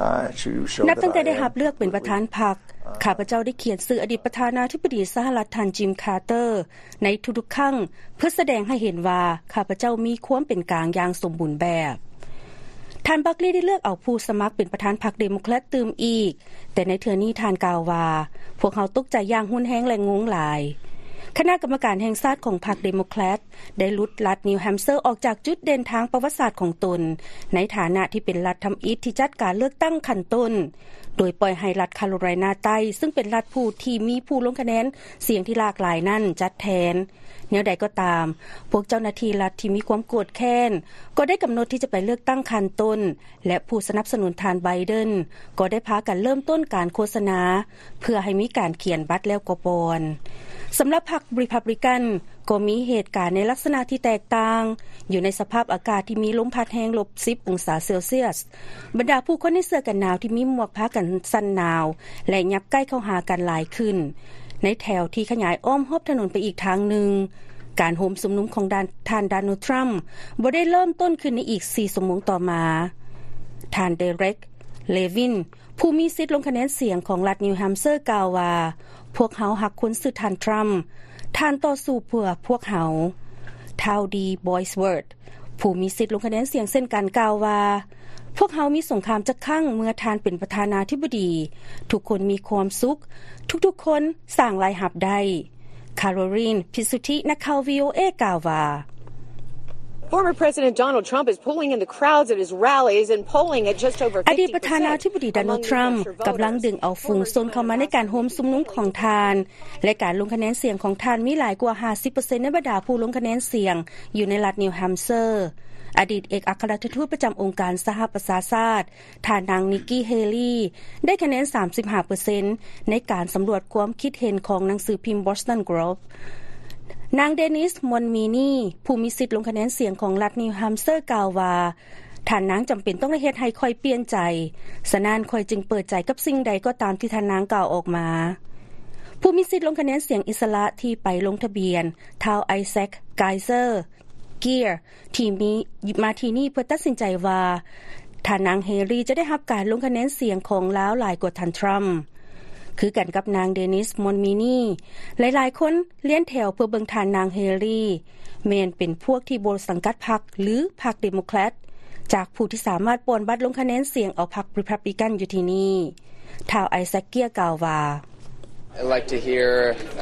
uh, to show that I am." ນັບຕັ້ງແຕ່ໄດ້ຮັບເລືອກເປັນປະທານພັກ, ຂ້າພະເຈົ້າໄດ້ຂຽນຊື່ອະດີດປະທານາທິບໍດີສະຫະລັດ ທ່ານ ຈິມ ຄາເຕີ ໃນທຸກໆຄັ້ງ ເພື່ອສະແດງໃຫ້ເຫັນວ່າຂ້າພະເຈົ້າມີຄວາມເປັນກາງຢ່າງສົມບູນແບບ. ທ່ານ ບາກລີ ໄດ້ເລືອກເອົາຜູ້ສະໝັກເປັນປະທານພັກເດໂມແຄຣດຕື່ມອີກ, ແຕ່ໃນເທື່ອນີ້ທ່ານກ່າວວ່າ: "ພວກເຮົາຕົກໃຈຢ່າງຮຸນແຮງ ແລະ ງົງຫຼາຍ." ຄະນະກຳມະການແຫ່ງຊາດຂອງພັກເດໂມແຄຣດ ໄດ້ຫຼຸດລັດນິວແຮມເຊີອອກຈາກຈຸດເດັ່ນທາງປະຫວັດສາດຂອງຕົນ ໃນຖານະທີ່ເປັນລັດທຳອິດທີ່ຈັດການເລືອກຕັ້ງຂັ້ນຕົ້ນ, ໂດຍປ່ອຍໃຫ້ລັດຄາໂຣໄລນາໃຕ້ ຊຶ່ງເປັນລັດຜູ້ທີ່ມີຜູ້ລົງຄະແນນສຽງທີ່ຫຼາກຫຼາຍນັ້ນຈັດແທນ. ແນວໃດກໍຕາມ, ພວກເຈົ້າໜ້າທີ່ລັດທີ່ມີຄວາມໂກດແຄ້ນກໍໄດ້ກຳນົດທີ່ຈະໄປເລືອກຕັ້ງຂັ້ນຕົ້ນ ແລະ ຜູ້ສະໜັບສະໜູນທ່ານ ໄບເດັນ ກໍໄດ້ພາກັນເລີ່ມຕົ້ນການໂຄສະນາ ເພື່ອໃຫ້ມີການຂຽນບັດແລ້ວກໍປ່ອນ. ສຳລັບພັກ Republican ກໍມີເຫດການໃນລັກສະນະທີ່ແຕກຕ່າງ, ຢູ່ໃນສະພາບອາກາດທີ່ມີລົມພັດແຮງລົບສິບອົງສາເຊລຊຽສ, ບັນດາຜູ້ຄົນໃນເສື້ອກັນໜາວທີ່ມີໝວກພາກັນສັ່ນໜາວ ແລະ ຫຍັບໃກ້ເຂົ້າຫາກັນຫຼາຍຂຶ້ນ ໃນແຖວທີ່ຂະຫຍາຍອ້ອມຮອບຖະໜົນໄປອີກທາງໜຶ່ງ. ການໂຮມຊຸມນຸມຂອງທ່ານ ໂດນັລ ທຣຳ ບໍ່ໄດ້ເລີ່ມຕົ້ນຂຶ້ນໃນອີກສີ່ຊົ່ວໂມງຕໍ່ມາ. ທ່ານ ເດເຣັກ ເລວິນ ຜູ້ມີສິດລົງຄະແນນສຽງຂອງລັດນິວແຮມເຊີ ກ່າວວ່າ: "ພວກເຮົາຮັກຄົນຊື່ທ່ານ ທຣຳ, ທ່ານຕໍ່ສູ້ເພື່ອພວກເຮົາ." ທ້າວ ດີ ບອຍສເວີດ ຜູ້ມີສິດລົງຄະແນນສຽງເຊັ່ນກັນ ກ່າວວ່າ: "ພວກເຮົາມີສົງຄາມຈັກຄັ້ງເມື່ອທ່ານເປັນປະທານາທິບໍດີ, ທຸກຄົນມີຄວາມສຸກ, ທຸກໆຄົນສ້າງລາຍຮັບໄດ້." ຄາໂຣລີນ ພິດສຸທິ ນັກຂ່າວ ວີໂອເອ ກ່າວວ່າ: "Former President Donald Trump is pulling in the crowds at his rallies and polling at just over fifty percent among the electoral voter. ອະດີດປະທານາທິບໍດີ ໂດນັລ ທຣຳ ກຳລັງດຶງເອົາຝູງຊົນເຂົ້າມາໃນການໂຮມຊຸມນຸມຂອງທ່ານ ແລະ ການລົງຄະແນນສຽງຂອງທ່ານມີຫຼາຍກວ່າຫ້າສິບເປີເຊັນໃນບັນດາຜູ້ລົງຄະແນນສຽງຢູ່ໃນລັດນິວແຮມເຊີ. ອະດີດເອກອັກຄະລັດຖະທູດປະຈຳອົງການສະຫະປະຊາຊາດ ທ່ານນາງ ນິກກີ ເຮລີ ໄດ້ຄະແນນສາມສິບຫ້າເປີເຊັນໃນການສຳຫຼວດຄວາມຄິດເຫັນຂອງໜັງສືພິມ Boston Globe. ນາງ ເດນິສ ມອນມີນີ ຜູ້ມີສິດລົງຄະແນນສຽງຂອງລັດນິວແຮມເຊີ ກ່າວວ່າ: "ທ່ານນາງຈຳເປັນຕ້ອງໄດ້ເຮັດໃຫ້ຂ້ອຍປ່ຽນໃຈ, ສະນັ້ນຂ້ອຍຈຶ່ງເປີດໃຈກັບສິ່ງໃດກໍຕາມທີ່ທ່ານນາງກ່າວອອກມາ." ຜູ້ມີສິດລົງຄະແນນສຽງອິດສະຫຼະທີ່ໄປລົງທະບຽນ ທ້າວ ໄອແຊັກ ໄກເຊີ ເກຍ ທີ່ມີ ມາທີ່ນີ້ເພື່ອຕັດສິນໃຈວ່າ ທ່ານນາງ ເຮລີ ຈະໄດ້ຮັບການລົງຄະແນນສຽງຂອງລາວຫຼາຍກວ່າທ່ານ ທຣຳ. ຄືກັນກັບນາງ ເດນິສ ມອນມີນີ, ຫຼາຍໆຄົນລຽນແຖວເພື່ອເບິ່ງທ່ານນາງ ເຮລີ ແມ່ນເປັນພວກທີ່ບໍ່ສັງກັດພັກ ຫຼື ພັກເດໂມແຄຣດ ຈາກຜູ້ທີ່ສາມາດປ່ອນບັດລົງຄະແນນສຽງເອົາພັກ Republican ຢູ່ທີ່ນີ້. ທ້າວ ໄອແຊັກ ເກຍ ກ່າວວ່າ: "I like to hear,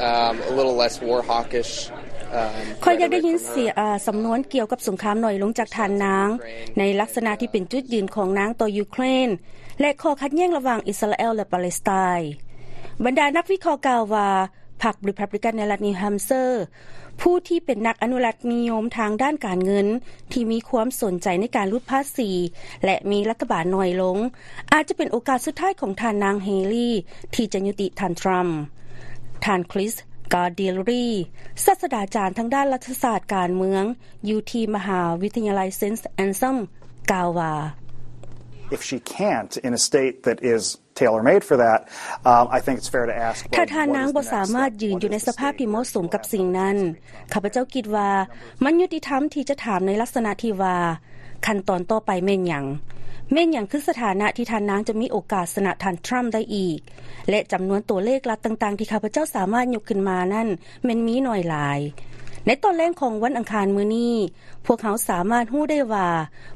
um, a little less war hawkish, um, rhetoric from her." ຂ້ອຍຢາກໄດ້ຍິນສຽງ ເອີ ສຳນວນກ່ຽວກັບສົງຄາມໜ້ອຍລົງຈາກທ່ານນາງ ໃນລັກສະນະທີ່ເປັນຈຸດຢືນຂອງນາງຕໍ່ຢູເຄຣນ ແລະ ຂໍ້ຂັດແຍ່ງລະຫວ່າງອິດສະຣາແອລ ແລະ ປາເລສໄຕ. ບັນດານັກວິເຄາະກ່າວວ່າ ພັກ Republican ໃນລັດນິວແຮມເຊີ ຜູ້ທີ່ເປັນນັກອະນຸລັກນິຍົມທາງດ້ານການເງິນ ທີ່ມີຄວາມສົນໃຈໃນການຫຼຸດພາສີ ແລະ ມີລັດຖະບານໜ້ອຍລົງ ອາດຈະເປັນໂອກາດສຸດທ້າຍຂອງທ່ານນາງ ເຮລີ ທີ່ຈະຍຸຕິທ່ານ ທຣຳ. ທ່ານ ຄຣິສ ກາເດຍຣີ ສາດສະດາຈານທາງດ້ານລັດຖະສາດການເມືອງ ຢູ່ທີ່ມະຫາວິທະຍາໄລ Saint Anselm ກ່າວວ່າ: "If she can't in a state that is tailor-made for that, um, I think it's fair to ask, well, what is the next step? ຖ້າທ່ານນາງບໍ່ສາມາດຢືນຢູ່ໃນສະພາບທີ່ເໝາະສົມກັບສິ່ງນັ້ນ, ຂ້າພະເຈົ້າຄິດວ່າມັນຍຸຕິທຳທີ່ຈະຖາມໃນລັກສະນະທີ່ວ່າ ຂັ້ນຕອນຕໍ່ໄປແມ່ນຫຍັງ? ແມ່ນຫຍັງຄືສະຖານະທີ່ທ່ານນາງຈະມີໂອກາດຊະນະທ່ານທຣຳໄດ້ອີກ? ແລະ ຈຳນວນຕົວເລກລັດຕ່າງໆທີ່ຂ້າພະເຈົ້າສາມາດຍົກຂຶ້ນມານັ້ນ ແມ່ນມີໜ້ອຍຫຼາຍ. ໃນຕອນແລງຂອງວັນອັງຄານມື້ນີ້ ພວກເຮົາສາມາດຮູ້ໄດ້ວ່າ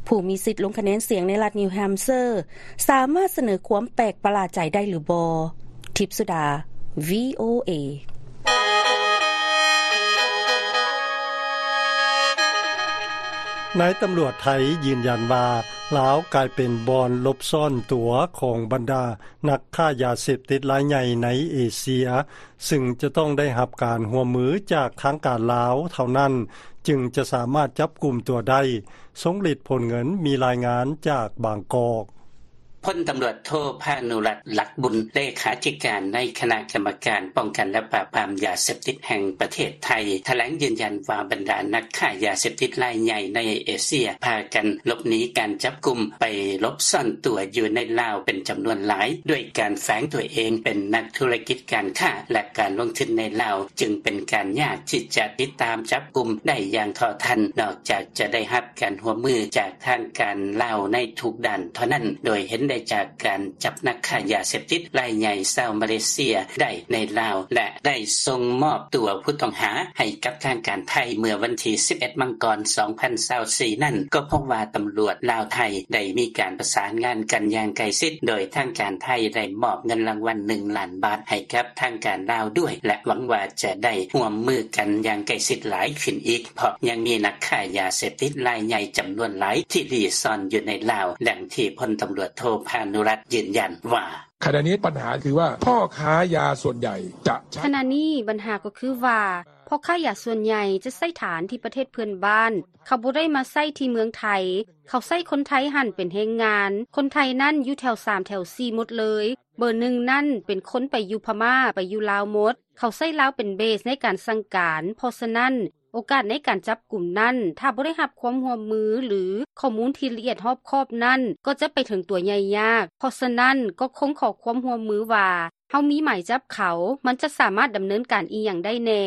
ຜູ້ມີສິດລົງຄະແນນສຽງໃນລັດນິວແຮມເຊີ ສາມາດສະເໜີຄວາມແປກປະຫຼາດໃຈໄດ້ຫຼືບໍ່? ທິບສຸດາ VOA. ນາຍຕຳຫຼວດໄທຢືນຢັນວ່າ ລາວກາຍເປັນບ່ອນຫຼົບຊ່ອນຕົວຂອງບັນດານັກຄ້າຢາເສບຕິດລາຍໃຫຍ່ໃນເອເຊຍ, ຊຶ່ງຈະຕ້ອງໄດ້ຮັບການຮ່ວມມືຈາກທາງການລາວເທົ່ານັ້ນ ຈຶ່ງຈະສາມາດຈັບກຸມຕົວໄດ້. ຊົງລິດ ພົນເງິນ ມີລາຍງານຈາກບາງກອກ. ພົນຕຳຫຼວດໂທ ພານຸລັດ ຫຼັກບຸນ ເລຂາທິການໃນຄະນະກຳມະການປ້ອງກັນ ແລະ ປາບປາມຢາເສບຕິດແຫ່ງປະເທດໄທ ຖະແຫຼງຢືນຢັນວ່າ ບັນດານັກຄ້າຢາເສບຕິດລາຍໃຫຍ່ໃນເອເຊຍ ພາກັນຫຼົບໜີການຈັບກຸມ ໄປຫຼົບຊ່ອນຕົວຢູ່ໃນລາວເປັນຈຳນວນຫຼາຍ ດ້ວຍການແຝງຕົວເອງເປັນນັກທຸລະກິດການຄ້າ ແລະ ການລົງທຶນໃນລາວ ຈຶ່ງເປັນການຍາກທີ່ຈະຕິດຕາມຈັບກຸມໄດ້ຢ່າງເທົ່າທັນ ນອກຈາກຈະໄດ້ຮັບການຮ່ວມມືຈາກທາງການລາວໃນທຸກດ້ານເທົ່ານັ້ນ ໂດຍເຫັນໄດ້ຈາກການຈັບນັກຄ້າຢາເສບຕິດລາຍໃຫຍ່ຊາວມາເລເຊຍໄດ້ໃນລາວ ແລະ ໄດ້ສົ່ງມອບຕົວຜູ້ຕ້ອງຫາໃຫ້ກັບທາງການໄທເມື່ອວັນທີສິບເອັດ ມັງກອນ ສອງພັນຊາວສີ່ນັ້ນ ກໍພົບວ່າຕຳຫຼວດລາວ-ໄທໄດ້ມີການປະສານງານກັນຢ່າງໃກ້ຊິດ ໂດຍທາງການໄທໄດ້ມອບເງິນລາງວັນໜຶ່ງລ້ານບາດໃຫ້ກັບທາງການລາວດ້ວຍ ແລະ ຫວັງວ່າຈະໄດ້ຮ່ວມມືກັນຢ່າງໃກ້ຊິດຫຼາຍຂຶ້ນອີກ ເພາະຍັງມີນັກຄ້າຢາເສບຕິດລາຍໃຫຍ່ຈຳນວນຫຼາຍທີ່ລີ້ຊ່ອນຢູ່ໃນລາວ, ດັ່ງທີ່ພົນຕຳຫຼວດໂທ ພານຸລັດ ຢືນຢັນວ່າ: "ขณะนี้ปัญหาคือว่าพ่อค้ายาส่วนใหญ่จะใช้" ຂະນະນີ້ບັນຫາກໍຄືວ່າ ພໍ່ຄ້າຢາສ່ວນໃຫຍ່ຈະໃຊ້ຖານທີ່ປະເທດເພື່ອນບ້ານ, ເຂົາບໍ່ໄດ້ມາໃຊ້ທີ່ເມືອງໄທ, ເຂົາໃຊ້ຄົນໄທຫັ້ນເປັນແຮງງານ, ຄົນໄທນັ້ນຢູ່ແຖວສາມແຖວສີ່ໝົດເລີຍ, ເບີໜຶ່ງນັ້ນເປັນຄົນໄປຢູ່ພະມ້າ, ໄປຢູ່ລາວໝົດ, ເຂົາໃຊ້ລາວເປັນເບສໃນການສັ່ງການ, ເພາະສະນັ້ນ ໂອກາດໃນການຈັບກຸມນັ້ນ ຖ້າບໍ່ໄດ້ຮັບຄວາມຮ່ວມມື ຫຼື ຂໍ້ມູນທີ່ລະອຽດຮອບຄອບນັ້ນ ກໍຈະໄປເຖິງຕົວໃຫຍ່ຍາກ. ເພາະສະນັ້ນ ກໍຄົງຂໍຄວາມຮ່ວມມືວ່າ ເຮົາມີໝາຍຈັບເຂົາ, ມັນຈະສາມາດດຳເນີນການອີ່ຫຍັງໄດ້ແດ່.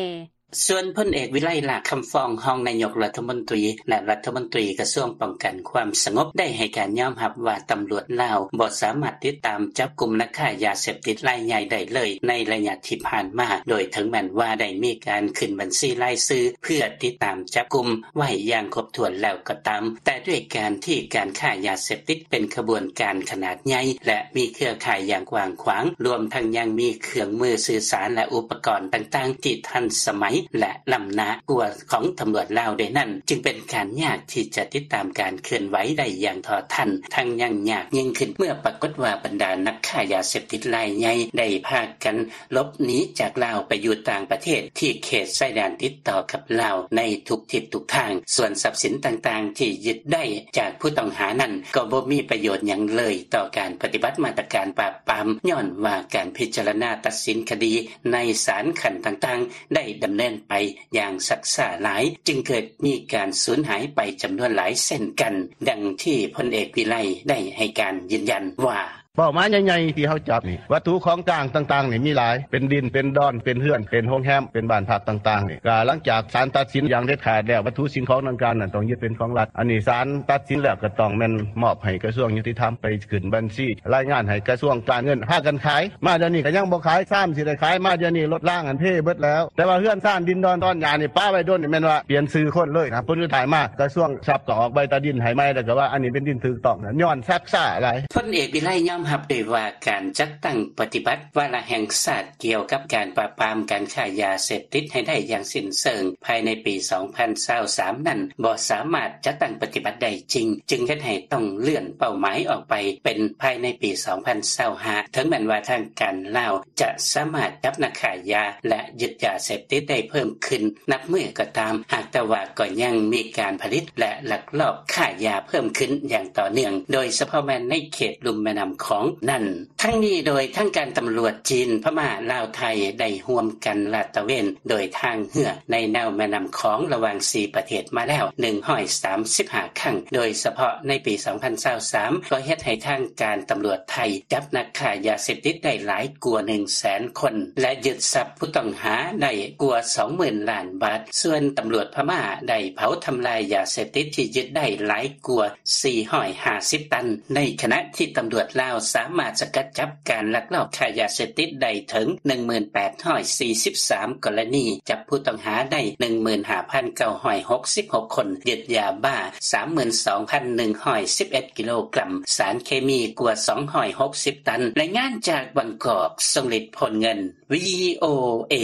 ສ່ວນພົນເອກ ວິໄລ ຫຼ້າຄຳຟອງ ຮອງນາຍົກລັດຖະມົນຕີ ແລະ ລັດຖະມົນຕີກະຊວງປ້ອງກັນຄວາມສະຫງົບ ໄດ້ໃຫ້ການຍອມຮັບວ່າ ຕຳຫຼວດລາວບໍ່ສາມາດຕິດຕາມຈັບກຸມນັກຄ້າຢາເສບຕິດລາຍໃຫຍ່ໄດ້ເລີຍໃນໄລຍະທີ່ຜ່ານມາ, ໂດຍເຖິງແມ່ນວ່າໄດ້ມີການຂຶ້ນບັນຊີລາຍຊື່ເພື່ອຕິດຕາມຈັບກຸມໄວ້ຢ່າງຄົບຖ້ວນແລ້ວກໍຕາມ, ແຕ່ດ້ວຍການທີ່ການຄ້າຢາເສບຕິດເປັນຂະບວນການຂະໜາດໃຫຍ່ ແລະ ມີເຄືອຂ່າຍຢ່າງກວ້າງຂວາງ, ລວມທັງຍັງມີເຄື່ອງມືສື່ສານ ແລະ ອຸປະກອນຕ່າງໆທີ່ທັນສະໄໝ ແລະ ລ້ຳໜ້າກວ່າຂອງຕຳຫຼວດລາວດ້ວຍນັ້ນ, ຈຶ່ງເປັນການຍາກທີ່ຈະຕິດຕາມການເຄື່ອນໄຫວໄດ້ຢ່າງເທົ່າທັນ, ທັງຍັງຍາກຍິ່ງຂຶ້ນ ເມື່ອປາກົດວ່າບັນດານັກຄ້າຢາເສບຕິດລາຍໃຫຍ່ໄດ້ພາກັນ ຫຼົບໜີຈາກລາວໄປຢູ່ຕ່າງປະເທດທີ່ເຂດຊາຍແດນຕິດຕໍ່ກັບລາວໃນທຸກທິດທຸກທາງ. ສ່ວນຊັບສິນຕ່າງໆທີ່ຍຶດໄດ້ຈາກຜູ້ຕ້ອງຫານັ້ນ ກໍບໍ່ມີປະໂຫຍດຫຍັງເລີຍຕໍ່ການປະຕິບັດມາດຕະການປາບປາມ, ຍ້ອນວ່າການພິຈາລະນາຕັດສິນຄະດີໃນສານຂັ້ນຕ່າງໆ ໄດ້ດຳເນີນໄປຢ່າງຊັກຊ້າຫຼາຍ, ຈຶ່ງເກີດມີການສູນຫາຍໄປຈຳນວນຫຼາຍເຊັ່ນກັນ, ດັ່ງທີ່ພົນເອກ ວິໄລ ໄດ້ໃຫ້ການຢືນຢັນວ່າ: ເປົ້າໝາຍໃຫຍ່ໆທີ່ເຮົາຈັບນີ້ ວັດຖຸຂອງກາງຕ່າງໆນີ້ມີຫຼາຍ ເປັນດິນ ເປັນດອນ ເປັນເຮືອນ ເປັນໂຮງແຮມ ເປັນບ້ານພັກຕ່າງໆນີ້ ກະຫຼັງຈາກສານຕັດສິນຢ່າງເດັດຂາດແລ້ວ ວັດຖຸສິ່ງຂອງດັ່ງກ່າວນັ້ນຕ້ອງຍຶດເປັນຂອງລັດ. ອັນນີ້ສານຕັດສິນແລ້ວກໍຕ້ອງແມ່ນມອບໃຫ້ກະຊວງຍຸຕິທຳ ໄປຂຶ້ນບັນຊີລາຍງານໃຫ້ກະຊວງການເງິນ ພາກັນຂາຍ. ມາດຽວນີ້ກໍຍັງບໍ່ຂາຍ ຊາມຊິໄດ້ຂາຍ ມາດຽວນີ້ລົດລາງຫັ້ນເພເບິດແລ້ວ. ແຕ່ວ່າເຮືອນຊານ ດິນດອນຕອນຫຍ້ານີ້ປະໄວ້ດົນນີ້ ແມ່ນວ່າປ່ຽນຊື່ຄົນເລີຍນະ. ຜົນສຸດທ້າຍມາ ກະຊວງຊັບກໍອອກໃບຕາດິນໃຫ້ໃໝ່ ແລ້ວກໍວ່າອັນນີ້ເປັນດິນຖືກຕ້ອງ ຍ້ອນຊັກຊ້າຫຼາຍ. ພົນເອກ ວິໄລ ຍອມຮັບດ້ວຍວ່າ ການຈັດຕັ້ງປະຕິບັດວາລະແຫ່ງຊາດກ່ຽວກັບການປາບປາມການຄ້າຢາເສບຕິດໃຫ້ໄດ້ຢ່າງສິ້ນເຊີງພາຍໃນປີສອງພັນຊາວສາມນັ້ນ ບໍ່ສາມາດຈັດຕັ້ງປະຕິບັດໄດ້ຈິງ, ຈຶ່ງເຮັດໃຫ້ຕ້ອງເລື່ອນເປົ້າໝາຍອອກໄປເປັນພາຍໃນປີສອງພັນຊາວຫ້າ ເຖິງແມ່ນວ່າທາງການລາວຈະສາມາດຈັບນັກຄ້າຢາ ແລະ ຍຶດຢາເສບຕິດໄດ້ເພີ່ມຂຶ້ນນັບມື້ກໍຕາມ, ຫາກແຕ່ວ່າກໍຍັງມີການຜະລິດ ແລະ ລັກລອບຄ້າຢາເພີ່ມຂຶ້ນຢ່າງຕໍ່ເນື່ອງ, ໂດຍສະເພາະແມ່ນໃນເຂດລຸ່ມແມ່ນ້ຳຂ ຂອງນັ້ນ. ທັງນີ້ໂດຍທາງການຕຳຫຼວດຈີນ, ພະມ້າ, ລາວ, ໄທ ໄດ້ຮ່ວມກັນລາດຕະເວນໂດຍທາງເຮືອໃນແນວແມ່ນ້ຳຂອງລະຫວ່າງສີ່ປະເທດມາແລ້ວໜຶ່ງຮ້ອຍສາມສິບຫ້າຄັ້ງ, ໂດຍສະເພາະໃນປີສອງພັນຊາວສາມ ກໍເຮັດໃຫ້ທາງການຕຳຫຼວດໄທຈັບນັກຄ້າຢາເສບຕິດໄດ້ຫຼາຍກວ່າໜຶ່ງແສນຄົນ ແລະ ຍຶດຊັບຜູ້ຕ້ອງຫາໄດ້ກວ່າສອງໝື່ນລ້ານບາດ. ສ່ວນຕຳຫຼວດພະມ້າໄດ້ເຜົາທຳລາຍຢາເສບຕິດທີ່ຍຶດໄດ້ຫຼາຍກວ່າສີ່ຮ້ອຍຫ້າສິບຕັນ, ໃນຂະນະທີ່ຕຳຫຼວດລາວສາມາດສະກັດຈັບການລັກລອບຄ້າຢາເສບຕິດໄດ້ເຖິງໜຶ່ງໝື່ນແປດຮ້ອຍສີ່ສິບສາມກໍລະນີ, ຈັບຜູ້ຕ້ອງຫາໄດ້ໜຶ່ງໝື່ນຫ້າພັນເກົ້າຮ້ອຍຫົກສິບຫົກຄົນ, ຍຶດຢາບ້າສາມໝື່ນສອງພັນໜຶ່ງຮ້ອຍສິບເອັດກິໂລກຣັມ, ສານເຄມີກວ່າສອງຮ້ອຍຫົກສິບຕັນ. ລາຍງານຈາກບາງກອກ, ຊົງລິດ ໂພນເງິນ ວີໂອເອ.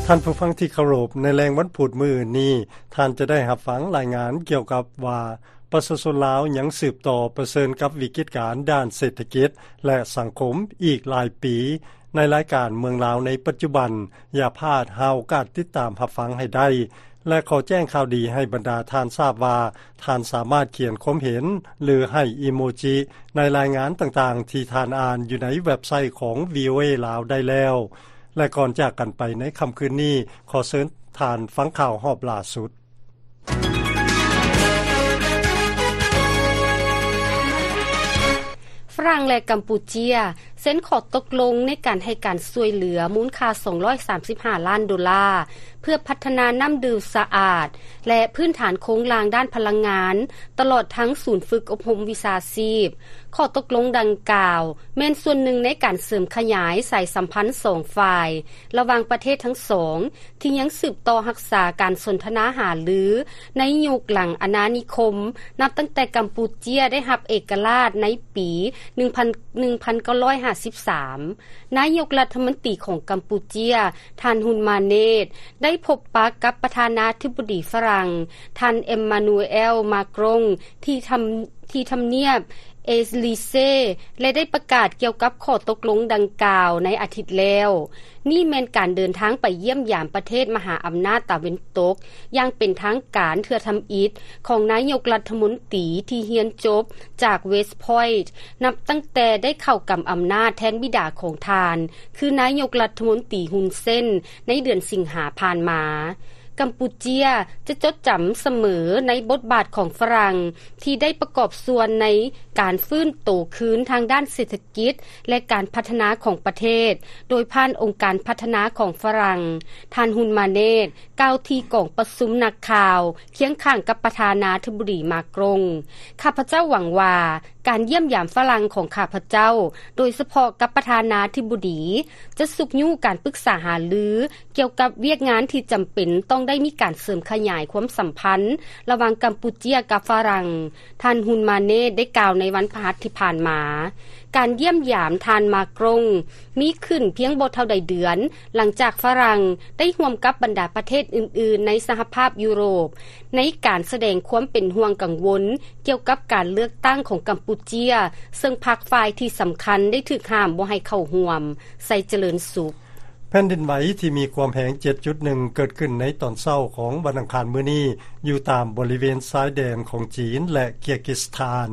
ທ່ານຜູ້ຟັງທີ່ເຄົາລົບ, ໃນແລງວັນພຸດມື້ອື່ນນີ້, ທ່ານຈະໄດ້ຮັບຟັງລາຍງານກ່ຽວກັບວ່າ ປະຊາຊົນລາວຍັງສືບຕໍ່ປະເຊີນກັບວິກິດການດ້ານເສດຖະກິດ ແລະ ສັງຄົມອີກຫຼາຍປີ. ໃນລາຍການເມືອງລາວໃນປັດຈຸບັນ, ຢ່າພາດຫາໂອກາດຕິດຕາມຮັບຟັງໃຫ້ໄດ້ ແລະ ຂໍແຈ້ງຂ່າວດີໃຫ້ບັນດາທ່ານຊາບວ່າ ທ່ານສາມາດຂຽນຄວາມເຫັນ ຫຼື ໃຫ້ອີໂມຈິໃນລາຍງານຕ່າງໆທີ່ທ່ານອ່ານຢູ່ໃນເວັບໄຊຂອງ ວີໂອເອ ລາວໄດ້ແລ້ວ. ແລະ ກ່ອນຈາກກັນໄປໃນຄ່ຳຄືນນີ້, ຂໍເຊີນທ່ານຟັງຂ່າວຮອບລ່າສຸດ. ຝຣັ່ງ ແລະ ກຳປູເຈຍ ເຊັນຂໍ້ຕົກລົງໃນການໃຫ້ການຊ່ວຍເຫຼືອມູນຄ່າສອງຮ້ອຍສາມສິບຫ້າລ້ານໂດລາ ເພື່ອພັດທະນານ້ຳດື່ມສະອາດ ແລະ ພື້ນຖານໂຄງລ່າງດ້ານພະລັງງານ ຕະຫຼອດທັງສູນຝຶກອົບຮົມວິຊາຊີບ. ຂໍ້ຕົກລົງດັ່ງກ່າວ ແມ່ນສ່ວນໜຶ່ງໃນການເສີມຂະຫຍາຍສາຍສຳພັນສອງຝ່າຍ ລະຫວ່າງປະເທດທັງສອງ ທີ່ຍັງສືບຕໍ່ຮັກສາການສົນທະນາຫາລືໃນຍຸກຫຼັງອານານິຄົມ, ນັບຕັ້ງແຕ່ກຳປູເຈຍໄດ້ຮັບເອກະລາດໃນປີໜຶ່ງພັນ ໜຶ່ງພັນເກົ້າຮ້ອຍຫ້າສິບສາມ. ນາຍົກລັດຖະມົນຕີຂອງກຳປູເຈຍ, ທ່ານ ຮຸນ ມາເນດ ໄດ້ພົບປະກັບປະທານາທິບໍດີຝຣັ່ງ, ທ່ານ ເອມມານູເອລ ມາກຣົງ ທີ່ທຳ ທີ່ທຳນຽບເອລີເຊ ແລະ ໄດ້ປະກາດກ່ຽວກັບຂໍ້ຕົກລົງດັ່ງກ່າວໃນອາທິດແລ້ວ. ນີ້ແມ່ນການເດີນທາງໄປຢ້ຽມຢາມປະເທດມະຫາອຳນາດຕາເວັນຕົກຢ່າງເປັນທາງການເທື່ອທຳອິດຂອງນາຍົກລັດຖະມົນຕີທີ່ຮຽນຈົບຈາກ West Point ນັບຕັ້ງແຕ່ໄດ້ເຂົ້າກຳອຳນາດແທນບິດາຂອງທ່ານ ຄືນາຍົກລັດຖະມົນຕີ ຮຸນ ເຊນ ໃນເດືອນສິງຫາຜ່ານມາ. ກຳປູເຈຍຈະຈົດຈຳສະເໝີໃນບົດບາດຂອງຝຣັ່ງທີ່ໄດ້ປະກອບສ່ວນໃນການຟື້ນໂຕຄືນທາງດ້ານເສດຖະກິດ ແລະ ການພັດທະນາຂອງປະເທດ ໂດຍຜ່ານອົງການພັດທະນາຂອງຝຣັ່ງ. ທ່ານ ຮຸນ ມາເນດ ກ່າວທີ່ກອງປະຊຸມນັກຂ່າວ ຄຽງຂ້າງກັບປະທານາທິບໍດີ ມາກຣົງ. ຂ້າພະເຈົ້າຫວັງວ່າ ການຢ້ຽມຢາມຝຣັ່ງຂອງຂ້າພະເຈົ້າ, ໂດຍສະເພາະກັບປະທານາທິບໍດີ, ຈະຊຸກຍູ້ການປຶກສາຫາລືກ່ຽວກັບວຽກງານທີ່ຈຳເປັນຕ້ອງໄດ້ມີການເສີມຂະຫຍາຍຄວາມສຳພັນລະຫວ່າງກຳປູເຈຍກັບຝຣັ່ງ, ທ່ານ ຮຸນ ມາເນດ ໄດ້ກ່າວໃນວັນພະຫັດທີ່ຜ່ານມາ. ການຢ້ຽມຢາມທ່ານ ມາກຣົງ ມີຂຶ້ນພຽງບໍ່ເທົ່າໃດເດືອນ ຫຼັງຈາກຝຣັ່ງໄດ້ຮ່ວມກັບບັນດາປະເທດອື່ນໆໃນສະຫະພາບຢູໂຣບ ໃນການສະແດງຄວາມເປັນຫ່ວງກັງວົນກ່ຽວກັບການເລືອກຕັ້ງຂອງກຳປູເຈຍ, ເຊິ່ງພັກຝ່າຍທີ່ສຳຄັນໄດ້ຖືກຫ້າມບໍ່ໃຫ້ເຂົ້າຮ່ວມ. ໄຊຈະເລີນສຸກ. ແຜ່ນດິນໄຫວທີ່ມີຄວາມແຮງ ເຈັດຈຸດໜຶ່ງ ເກີດຂຶ້ນໃນຕອນເຊົ້າຂອງວັນອັງຄານມື້ນີ້ ຢູ່ຕາມບໍລິເວນຊາຍແດນຂອງຈີນ ແລະ ເກີຍກິສຖານ.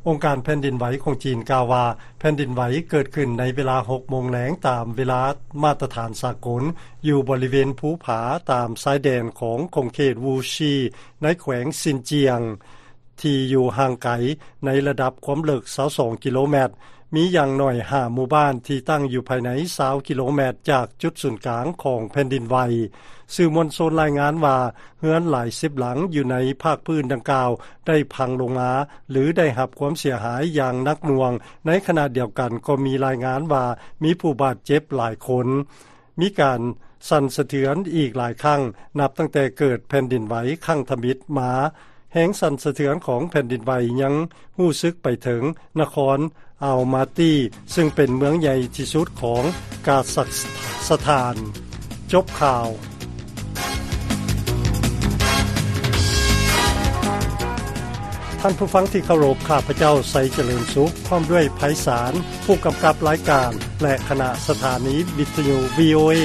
ອົງການແຜ່ນດິນໄຫວຂອງຈີນກ່າວວ່າ ແຜ່ນດິນໄຫວເກີດຂຶ້ນໃນເວລາຫົກໂມງແລງຕາມເວລາມາດຕະຖານສາກົນ ຢູ່ບໍລິເວນພູຜາຕາມຊາຍແດນຂອງຂົງເຂດວູຊີ ໃນແຂວງຊິນຈຽງ ທີ່ຢູ່ຫ່າງໄກໃນລະດັບຄວາມເລິກຊາວສອງກິໂລແມັດ. ມີຢ່າງໜ້ອຍຫ້າໝູ່ບ້ານທີ່ຕັ້ງຢູ່ພາຍໃນຊາວກິໂລແມັດຈາກຈຸດສູນກາງຂອງແຜ່ນດິນໄຫວ. ສື່ມວນຊົນລາຍງານວ່າ ເຮືອນຫຼາຍສິບຫຼັງຢູ່ໃນພາກພື້ນດັ່ງກ່າວໄດ້ພັງລົງມາ ຫຼື ໄດ້ຮັບຄວາມເສຍຫາຍຢ່າງໜັກໜ່ວງ. ໃນຂະນະດຽວກັນກໍມີລາຍງານວ່າມີຜູ້ບາດເຈັບຫຼາຍຄົນ. ມີການສັ່ນສະເທືອນອີກຫຼາຍຄັ້ງ ນັບຕັ້ງແຕ່ເກີດແຜ່ນດິນໄຫວຄັ້ງທຳອິດມາ. ແຮງສັ່ນສະເທືອນຂອງແຜ່ນດິນໄຫວຍັງຮູ້ສຶກໄປເຖິງນະຄອນອາວມາຕີ ຊຶ່ງເປັນເມືອງໃຫຍ່ທີ່ສຸດຂອງກາຊັກສະຖານ. ຈົບຂ່າວ. ທ່ານຜູ້ຟັງທີ່ເຄົາລົບ, ຂ້າພະເຈົ້າ ໄຊຈະເລີນສຸກ ພ້ອມດ້ວຍ ໄພສານ ຜູ້ກຳກັບລາຍການ ແລະ ຄະນະສະຖານີວິທະຍຸ ວີໂອເອ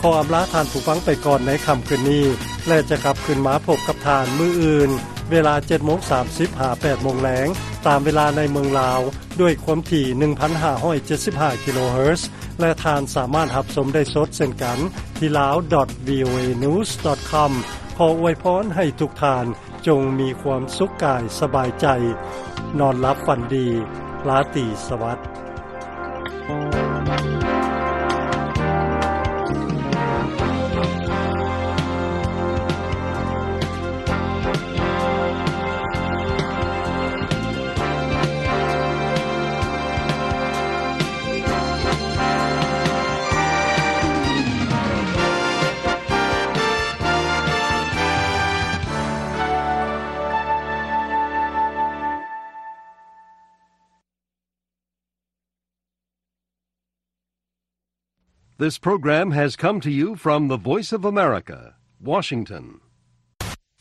ຂໍອຳລາທ່ານຜູ້ຟັງໄປກ່ອນໃນຄ່ຳຄືນນີ້ ແລະ ຈະກັບຄືນມາພົບກັບທ່ານມື້ອື່ນ ເວລາເຈັດໂມງສາມສິບ ຫາ ແປດໂມງແລງ ຕາມເວລາໃນເມືອງລາວ ດ້ວຍຄວາມຖີ່ ໜຶ່ງພັນຫ້າຮ້ອຍເຈັດສິບຫ້າ ກິໂລເຮີດ ແລະ ທ່ານສາມາດຮັບຊົມໄດ້ສົດເຊັ່ນກັນ ທີ່ lawdotvoanews.com. ຂໍອວຍພອນໃຫ້ທຸກທ່ານຈົ່ງມີຄວາມສຸກກາຍສະບາຍໃຈ, ນອນຫຼັບຝັນດີ, ລາຕີສະຫວັດ. This program has come to you from the Voice of America, Washington.